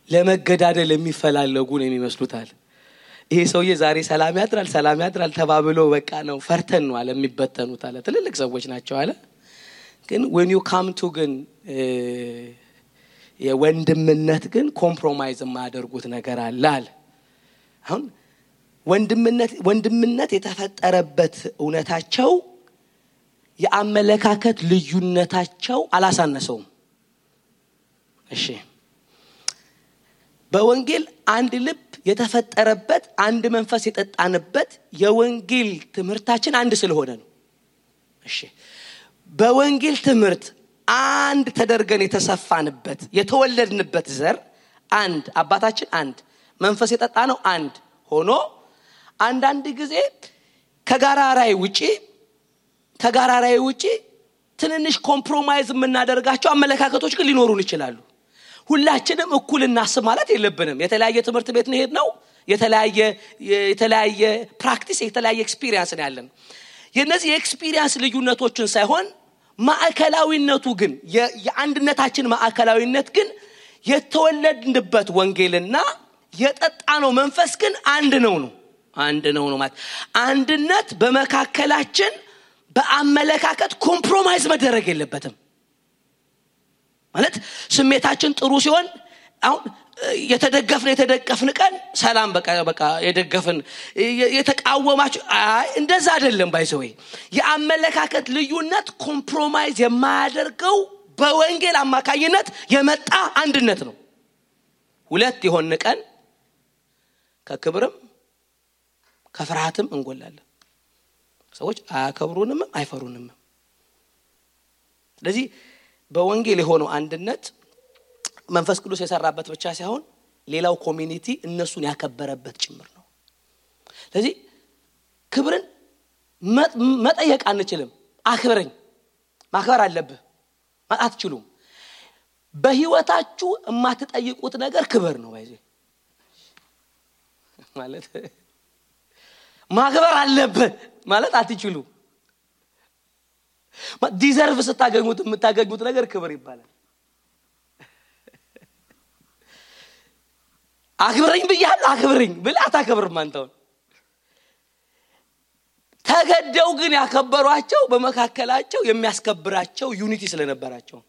Speaker 1: ለመገዳደል የሚፈላለጉ ነው የሚመስሉታል። ይሄ ሰውዬ ዛሬ ሰላም ያድራል ተባብሎ በቃ ነው ፈርተን ነው አለ የሚበተኑት አለ። ትልልቅ ሰዎች ናቸው አለ። ግን when you come to ግን የወንድምነት ግን ኮምፕሮማይዝ የማያደርጉት ነገር አለ። አሁን ወንድምነት የተፈጠረበት እውነታቸው የአመለካከት ልዩነታቸው አላሳነሰውም። እሺ በወንጌል አንድ ልብ የተፈጠረበት አንድ መንፈስ የጠጣንበት የወንጌል ትምህርታችን አንድ ስለሆነ ነው። እሺ በወንጌል ትምህርት አንድ ተደርገን የተሰፋንበት የተወለድንበት ዘር አንድ አባታችን አንድ መንፈስ የጠጣነው አንድ ሆኖ አንዳንድ ጊዜ ከጋራ ራዕይ ውጪ ትንንሽ ኮምፕሮማይዝ የምናደርጋቸው አመለካከቶች ግን ሊኖሩን ይችላሉ። ሁላችንም እኩል እናስብ ማለት የለብንም። የተለያየ ትምህርት ቤት ነው ሄድነው፣ የተለያየ ፕራክቲስ የተለያየ ኤክስፒሪየንስ ነው ያለን። የነዚህ ኤክስፒሪየንስ ልዩነቶችን ሳይሆን ማዕከላዊነቱ ግን የአንድነታችን ማዕከላዊነት ግን የተወለድንበት ወንጌልና የጠጣነው መንፈስ ግን አንድ ነው ማለት አንድነት በመካከላችን በአመለካከት ኮምፕሮማይዝ መደረግ የለበትም ማለት ስሜታችን ጥሩ ሲሆን አሁን የተደገፍን ቀን ሰላም በቃ የደገፍን የተቃወማችሁ እንደዛ አይደለም። ባይዘው የአመለካከት ልዩነት ኮምፕሮማይዝ የማያደርገው በወንጌል አማካኝነት የመጣ አንድነት ነው። ሁለት የሆነ ቀን ከክብርም ከፍርሃትም እንጎላለን። ሰዎች አያከብሩንም አይፈሩንም። ስለዚህ በወንጌል የሆነው አንድነት መንፈስ ቅዱስ የሰራበት ብቻ ሳይሆን ሌላው ኮሚኒቲ እነሱን ያከበረበት ጭምር ነው። ስለዚህ ክብርን መጠየቅ አንችልም። አክብረኝ ማክበር አለብህ ማለት አትችሉም። በህይወታችሁ የማትጠይቁት ነገር ክብር ነው። ባይዘ ማለት ማክበር አለብህ ማለት አትችሉም። ዲዘርቭ ስታገኙት የምታገኙት ነገር ክብር ይባላል። አክብረኝ ብያለሁ አክብረኝ ብለህ አታከብርም አንተው። ተገደው ግን ያከበሯቸው በመካከላቸው የሚያስከብራቸው ዩኒቲ ስለነበራቸው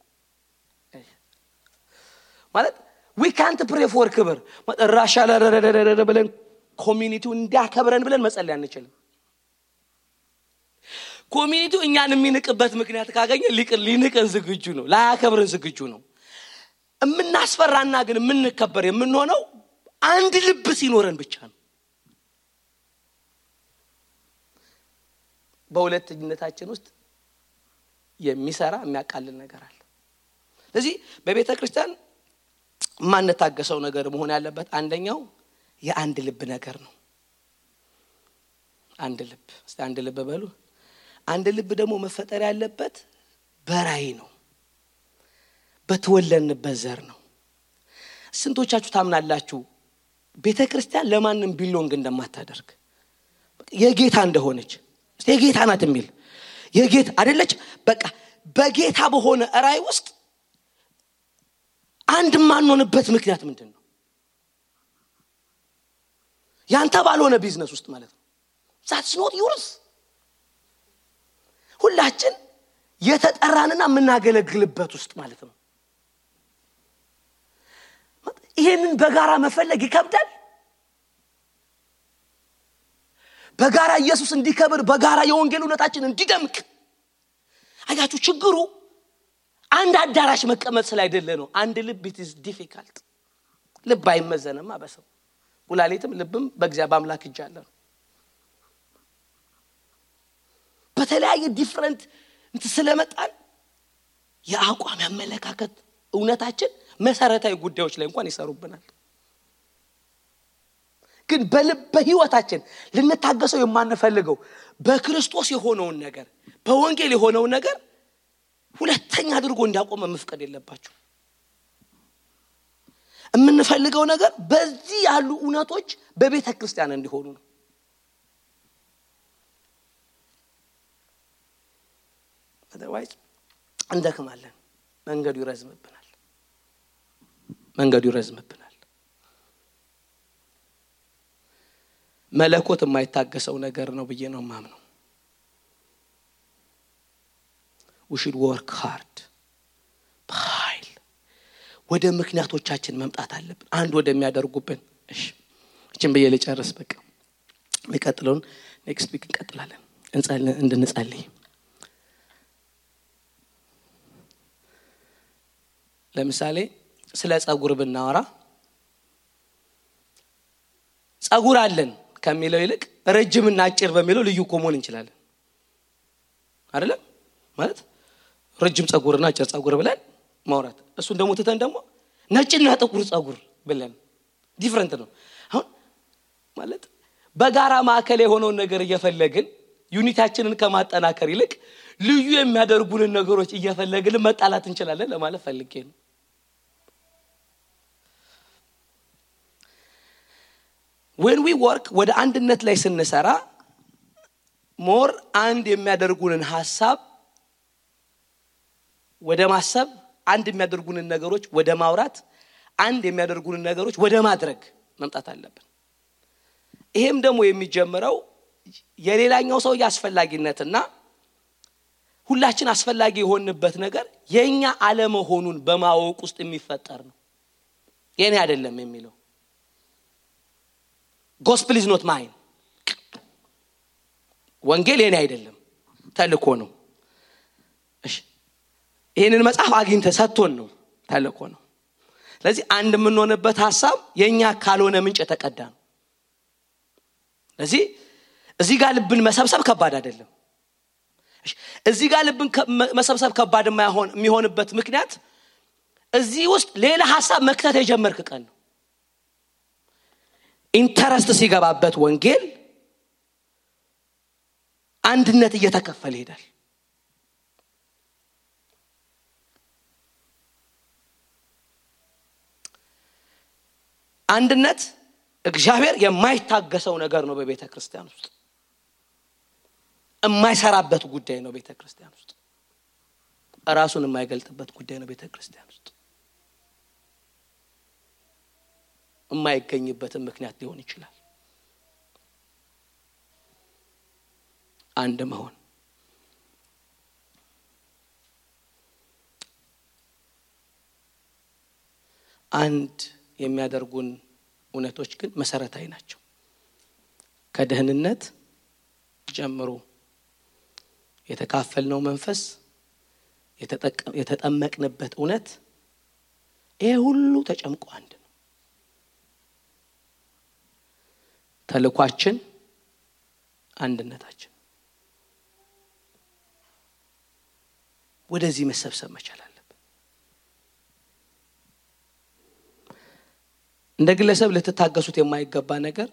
Speaker 1: ማለት we can't pray for ክብር ራሻላ ብለን ኮሚኒቲው እንዲያከብረን ብለን መጸለይ አንችልም። ኮሚኒቲው እኛን የሚንቅበት ምክንያት ካገኘ ሊንቀን ዝግጁ ነው፣ ላያከብረን ዝግጁ ነው። እምናስፈራና ግን የምንከበር የምንሆነው አንድ ልብ ሲኖረን ብቻ ነው። በሁለተኝነታችን ውስጥ የሚሰራ የሚያቃልል ነገር አለ። ስለዚህ በቤተ ክርስቲያን ማንታገሰው ነገር መሆን ያለበት አንደኛው የአንድ ልብ ነገር ነው። አንድ ልብ እስቲ አንድ ልብ በሉ። አንድ ልብ ደግሞ መፈጠር ያለበት በራይ ነው፣ በተወለድንበት ዘር ነው። ስንቶቻችሁ ታምናላችሁ ቤተ ክርስቲያን ለማንም ቢሎንግ እንደማታደርግ የጌታ እንደሆነች? እስቲ የጌታ ናት የሚል የጌታ አይደለች? በቃ በጌታ በሆነ ራይ ውስጥ አንድ ማንሆንበት ምክንያት ምንድነው? ያንተ ባልሆነ ቢዝነስ ውስጥ ማለት ነው። that's not yours። ሁላችን የተጠራንና የምናገለግልበት ውስጥ ማለት ነው። ይሄንን በጋራ መፈለግ ይከብዳል። በጋራ ኢየሱስ እንዲከብር በጋራ የወንጌል እውነታችን እንዲደምቅ አያችሁ ችግሩ አንድ አዳራሽ መቀመጥ ስላይደለ ነው። አንድ ልብ it is difficult። ልብ አይመዘንም በሰው ኩላሊትም ልብም በእግዚአብሔር አምላክ እጅ አለ። በተለያየ ዲፈረንት ስለመጣን የአቋም ያመለካከት እውነታችን መሰረታዊ ጉዳዮች ላይ እንኳን ይሰሩብናል። ግን በህይወታችን ልንታገሰው የማንፈልገው በክርስቶስ የሆነውን ነገር በወንጌል የሆነውን ነገር ሁለተኛ አድርጎ እንዲያቆም መፍቀድ የለባችሁ። የምንፈልገው ነገር በዚህ ያሉ እውነቶች በቤተ ክርስቲያን እንዲሆኑ ነው። otherwise እንደከማለን መንገዱ ይረዝምብናል። መለኮት የማይታገሰው ነገር ነው ብዬ ነው ማምነው። we should work hard በኃይል ወደ ምክንያቶቻችን መምጣት አለብን። አንድ ወደሚያደርጉብን እቺን በየ ልጨርስ በቃ የሚቀጥለውን next week እንቀጥላለን እንድንጸልይ። ለምሳሌ ስለ ጸጉር ብናወራ ጸጉር አለን ከሚለው ይልቅ ረጅምና አጭር በሚለው ልዩ ኮሞን እንችላለን አይደለም? ማለት ረጅም ጸጉርና አጭር ጸጉር ብለን ማውራት እሱን ደግሞ ተተን ደግሞ ነጭና ጥቁር ጸጉር ብለን ዲፈረንት ነው። አሁን ማለት በጋራ ማዕከል የሆነውን ነገር እየፈለግን ዩኒታችንን ከማጠናከር ይልቅ ልዩ የሚያደርጉን ነገሮች እየፈለግን መጣላት እንችላለን ለማለት ፈልጌ ነው። when we work ወደ አንድነት ላይ ስንሰራ ሞር አንድ የሚያደርጉንን ሐሳብ ወደ ማሰብ አንድ የሚያደርጉንን ነገሮች ወደ ማውራት አንድ የሚያደርጉንን ነገሮች ወደ ማድረግ መምጣት አለብን። ይሄም ደግሞ የሚጀምረው የሌላኛው ሰው ያስፈልጋነትና ሁላችን አስፈልጋጊ የሆንበት ነገር የኛ ዓለም ሆኑን በማወቅ ውስጥ የሚፈጠር ነው። የኔ አይደለም የሚለው gospel is not mine ወንጌል የኔ አይደለም ተልኮ ነው እሺ ይሄንን መጽሐፍ አግኝተ ሰጥቶን ነው ተልኮ ነው ስለዚህ አንድ ምን ሆነበት ሐሳብ የኛ ካልሆነ ምንጭ ተቀዳ ነው ስለዚህ እዚህ ጋር ልብን መሰብሰብ ከባድ አይደለም እሺ እዚህ ጋር ልብን መሰብሰብ ከባድ የሚሆንበት ምክንያት እዚህ ውስጥ ሌላ ሐሳብ መክተት የጀመርክ ቀን ነው ኢንተረስት ሲገባበት ወንጌል አንድነት እየተከፈለ ይሄዳል አንድነት እግዚአብሔር የማይታገሰው ነገር ነው በቤተክርስቲያን ውስጥ የማይሰራበት ጉዳይ ነው ቤተክርስቲያን ውስጥ ራሱን የማይገልጥበት ጉዳይ ነው ቤተክርስቲያን ውስጥ የማይገኝበት ምክንያት ሊሆን ይችላል አንድ መሆን አንድ የሚያደርጉን እውነቶች ግን መሰረታዊ ናቸው ከደህንነት ጀምሮ የተካፈልነው መንፈስ የተጠመቅንበት እውነት ይሄ ሁሉ ተጨምቆ አንድ ነው ተልኳችን አንድነታችን ወደዚህ መሰብሰብ መቻል አለብን እንደ ግለሰብ ልትታገሱት የማይገባ ነገር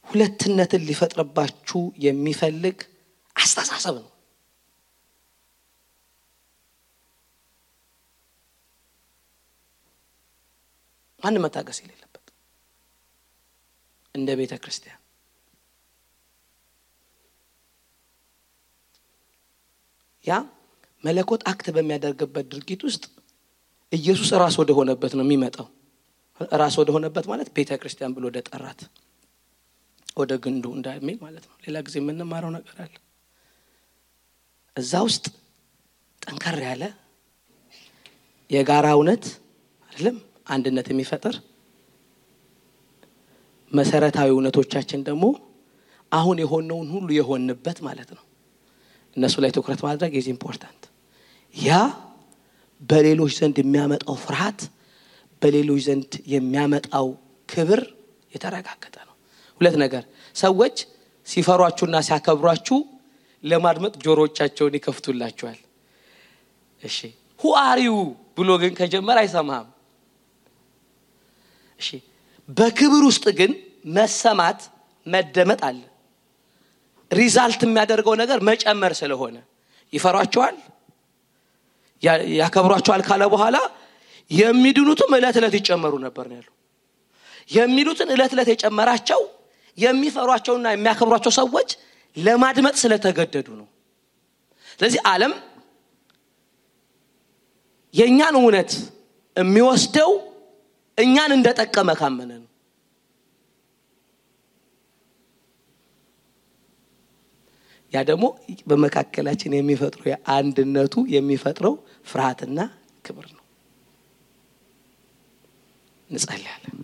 Speaker 1: ሁለትነትን ሊፈጥርባችሁ የሚፈልግ አስተሳሰብ ነው ማን መታገስ የሌለበት እንደ ቤተክርስቲያን ያ መለኮት አክት በሚያደርግበት ድርጊት ውስጥ ኢየሱስ ራስ ወደ ሆነበት ነው የሚመጣው ራስ ወደ ሆነበት ማለት ቤተክርስቲያን ብሎ ደጠራት ወደ ግንዱ እንዳይል ማለት ነው ሌላ ጊዜ ምን ማራው ነገር አለ እዛ ውስጥ ጠንከር ያለ የጋራ እውነት አይደለም አንድነት የሚፈጥር መሰረታዊ እውነቶቻችን ደግሞ አሁን የሆነውን ሁሉ የሆንበት ማለት ነው እነሱ ላይ ትኩረት ማድረግ is important ያ በሌሎች ዘንድ የሚያመጣው ፍርሃት በሌሎች ዘንድ የሚያመጣው ክብር የተረጋገጠ ነው ሁለት ነገር ሰዎች ሲፈሯችሁና ሲያከብሯችሁ ለማድመጥ ጆሮቻቸውን ይከፍቱላችኋል እሺ who are you ብሎ ግን ከጀመረ አይሰማም እሺ በክብር ውስጥ ግን መሰማት መደመጥ አለ ሪዛልት የሚያደርገው ነገር መጨመር ስለሆነ ይፈሯቸዋል ያከብሯቸዋል ካለ በኋላ የሚድኑትም እለት እለት ይጨመሩ ነበር ነው ያለው የሚሉትን እለት እለት የጨመራቸው የሚፈሯቸውና የሚያከብሯቸው ሰዎች ለማድመጥ ስለተገደዱ ነው ስለዚህ ዓለም የኛን እውነት የሚወስደው እኛን እንደተጠቀመ ካመነ ነው ያ ደግሞ በመካከላችን የሚፈጥረው የአንድነቱ የሚፈጥረው ፍርሃትና ክብር ነው እንጸልያለን